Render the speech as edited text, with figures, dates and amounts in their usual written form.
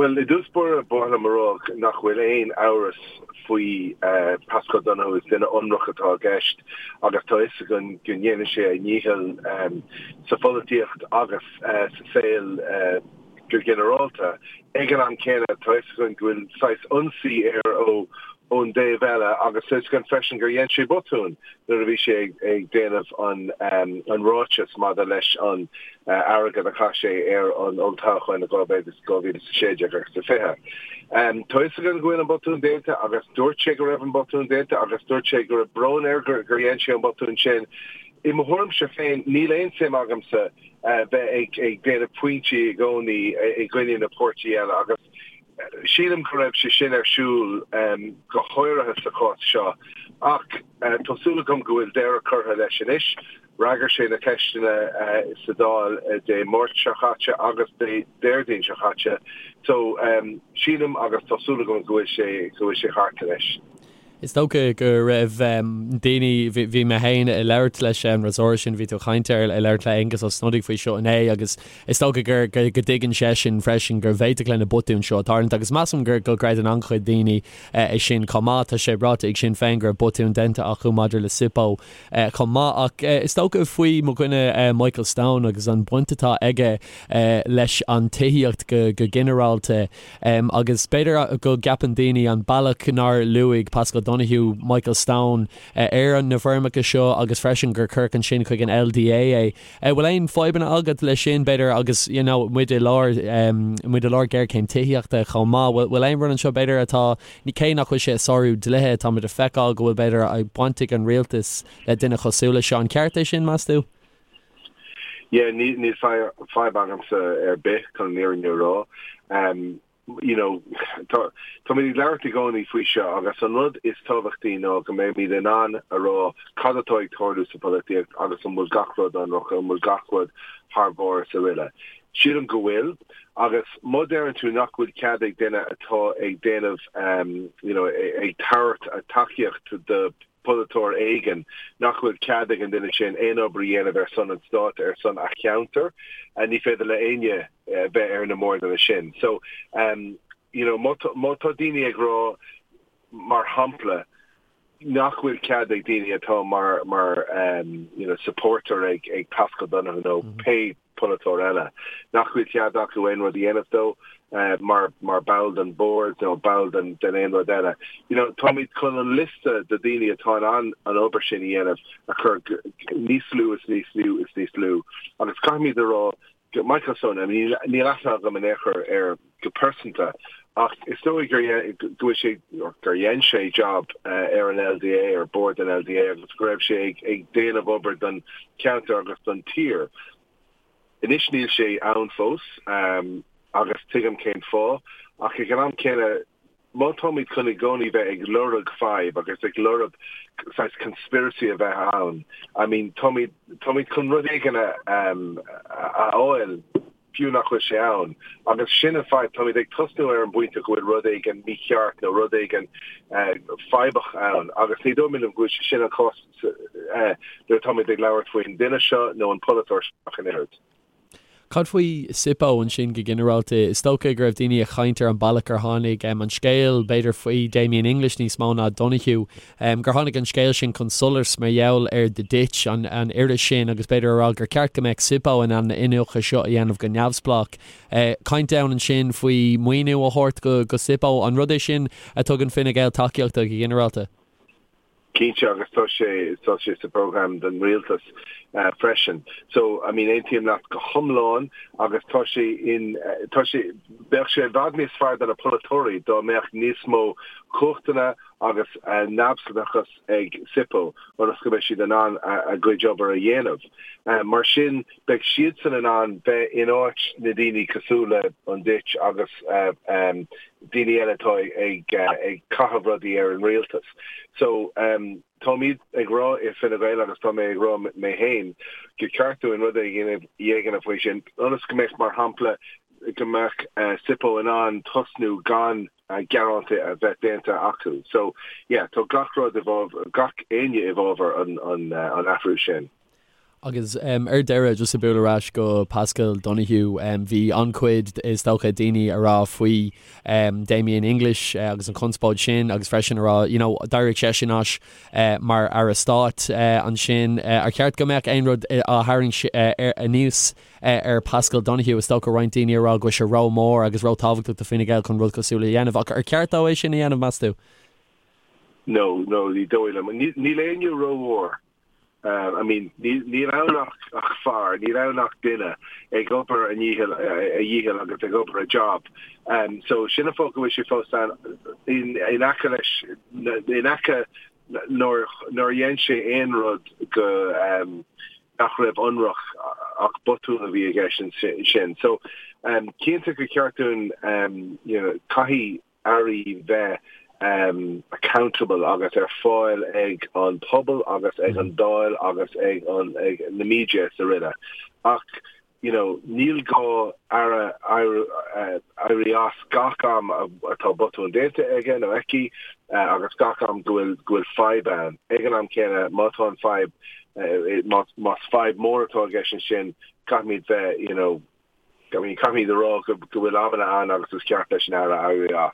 Bhuel, i dtús báire, ba mhaith liom a rá nach bhfuil aon amhras faoi Paschal Donohoe, is duine ionraic atá i gceist agus tá fhios againn go ndéanann sé a dhícheall sa pholaitíocht agus sa saol go ginearálta. Ag an am céanna, tá fhios againn go bhfuil saghas ionsaí air ó ón dtaobh eile agus tá fhios againn freisin gur dhein sé botún nuair a bhí sé ag déanamh an ráiteas maidir leis an airgead a chaith sé ar an olltoghchán i 2016 agus 20. Tá fhios againn go bhfuil an botún déanta agus dúirt sé go raibh an botún déanta agus dúirt sé go raibh brón air gur dhein sé an botún sin. I mo thuairimse féin, níl aon suim agamsa bheith ag déanamh pointí i gcónaí i gcoinne na páirtí eile agus sílim go raibh sé sin ar siúl go háirithe sa chás seo ach tá súil agam go bhfuil deireadh curtha leis anois. Fhreagair sé na ceisteanna sa Dáil Dé Máirt seo chaite agus Dé Déardaoin seo chaite so sílim agus tá súil agam go bhfuil sé go bhfuil sé thart anois. Is dócha go raibh daoine, bhí mé féin ag labhairt leis an fhreasúra sin, bhí tú ag caint air, ag labhairt le Aengus Ó Snodaigh faoi seo inné agus is dócha gur, go dtuigeann seisean freisin go bhféadfadh le na botúin seo tarlúint agus measaim gur, go gcreideann an-chuid daoine é sin chomh maith. Tá sé ráite ag Sinn Féin go raibh botún déanta acu maidir le SIPO chomh maith ach is dócha faoi mo dhuine Michael Stone agus an bhaint atá aige leis an tithíocht go ginearálta. Agus b'fhéidir go gceapann daoine an bealach nár luaigh Paschal Donohoe Michael Stone ar na foirmeacha seo agus freisin gur cuireadh ansin chuig an LDA é. Bhfuil aon fadhbanna agat leis sin, b'fhéidir, agus you know muid i lár, muid i lár géarchéim tithíochta chomh maith, bhfuil aon rud anseo b'fhéidir atá, cé nach bhfuil sé ag sárú dlíthe, tá muid ag feiceáil go bhfuil b'fhéidir baint ag an rialtas le duine cosúil leis seo. An ceart é sin, meas tú? Yeah, níl fadhb agamsa ar bith chun an fhírinne a rá. You know, tá táimid ag labhairt i gcónaí faoi seo agus an rud is tábhachtaí ná go mbeimid in ann a rá cad atá ag tarlú sa pholaitíocht agus an bhfuil gach rud ionraic, an bhfuil gach rud thar barr is araile. Sílim go bhfuil agus má deireann tú nach bhfuil cead ag duine atá ag déanamh, you know, ag tabhairt tacaíocht do polaiteoir éigin nach bhfuil cead ag an duine sin aon obair a dhéanamh ar son an stáit, ar son a cheantair, ní féidir le éinne bheith ar na mbordanna sin. So, you know, má tá daoine ag rá, mar shampla, nach bhfuil cead ag daoine atá mar, mar, you know, supporter ag, ag Paschal Donohoe nó pé polaiteoir eile, nach bhfuil cead acu aon rud a dhéanamh dó mar mar ball den bhord nó ball den den aon rud eile. You know, táimid chun an liosta de daoine atá in ann an obair sin a dhéanamh a chur níos lú is níos lú is níos lú agus caithfimid a rá go Michael Stone, I mean, níl aithne agam in aon chor air go pearsanta ach is dóigh gur go bhfuil sé gur dhein sé job ar an LDA ar bord an LDA agus go raibh sé ag ag déanamh obair don cheantar agus don tír. Anois níl sé ann fós agus tuigim cén fáth ach ag an am céanna má táimid chun i gcónaí bheith ag lorg fadhb agus ag lorg saghas conspiracy a bheith ann, I mean táimid táimid chun rud éigin a a fháil fiú nach bhfuil sé ann. Agus sin an fadhb, táimid ag tosnú ar an bpointe go bhfuil rud éigin mícheart nó rud éigin fadhbach ann agus ní dóigh liom go bhfuil sé sin an cás nuair atáimid ag labhairt faoin duine seo nó an polaiteoir seo ach an oiread. Cad faoi SIPO ansin go ginearálta? Is dócha go raibh daoine ag caint ar an bealach ar tháinig an scéal, b'fhéidir faoi Damien English níos mó ná Donohoe, gur tháinig an scéal sin chun solais mar gheall ar The Ditch, an iris sin, agus b'fhéidir a rá gur ceart go mbeadh SIPO in ann na iniúchadh seo a dhéanamh go neamhspleách. Caint ann ansin faoi maoiniú a thabhairt go SIPO. An rud é sin a tugann Fine Gael tacaíocht do go ginearálta? Cinnte, agus tá sé, tá sé sa program don rialtas freisin. So, I mean, aontaím leat go hiomlán agus tá sé in, tá sé, bheadh sé i bhfad níos fearr do na polaiteoirí dá mbeadh níos mó cumhachtanna agus neamhspleáchas ag SIPO ionas go mbeidh siad in ann a gcuid obair a dhéanamh. Mar sin, beidh siadsan in ann bheith in áit na daoine cosúil le an Ditch agus daoine eile atá ag caitheamh rudaí ar an rialtas. So, táimid ag rá i Fine Gael agus tá mé ag rá mé féin gur ceart dúinn rud éigin a dhéanamh faoi sin ionas go mbeadh, mar shampla, go mbeadh SIPO in ann tosnú gan gearánta a bheith déanta acu. So, yeah, tá gach rud i bhfabhar, gach éinne i bhfabhar an athrú sin. Agus ar deireadh, just ag bualadh ar ais go Paschal Donohoe, bhí an-chuid, is dócha, daoine a rá faoi Damien English agus an chonspóid sin agus freisin a rá, you know, d'éirigh seisean as mar Aire Stáit ansin. Ar cheart go mbeadh aon rud á tharraingt anuas ar Paschal Donohoe? Is dócha roinnt daoine a rá go bhfuil sé ró-mhór agus ró-tábhachtach do Fine Gael chun rud cosúil a dhéanamh. Ach ar cheart dó é sin a dhéanamh, meas tú? No, no, ní dóigh liom. Níl éinne rómhór. I mean, níl ann ach fear, níl ann ach duine ag obair a ndícheall, a dhícheall agus ag obair a job. So sin an fáth go bhfuil sé fós ann in aice leis, in aice nuair nár dhein sé aon rud go nach raibh ionraic ach botún a bhí i gceist ansin. So cinnte gur cheart dúinn, you know, caithfidh airí bheith accountable agus ar fáil ag an pobal agus ag an Dáil agus ag an ag na media is araile. Ach you know níl gá aire éirí as gach am atá botún déanta aige nó aici agus gach am go bhfuil go bhfuil fadhb ann. Ag an am céanna má tá an fadhb más fadhb mór atá i gceist ansin caithfimid bheith you know I mean caithfimid a rá go bhfuil amanna ann agus is ceart leis an aire éirí as.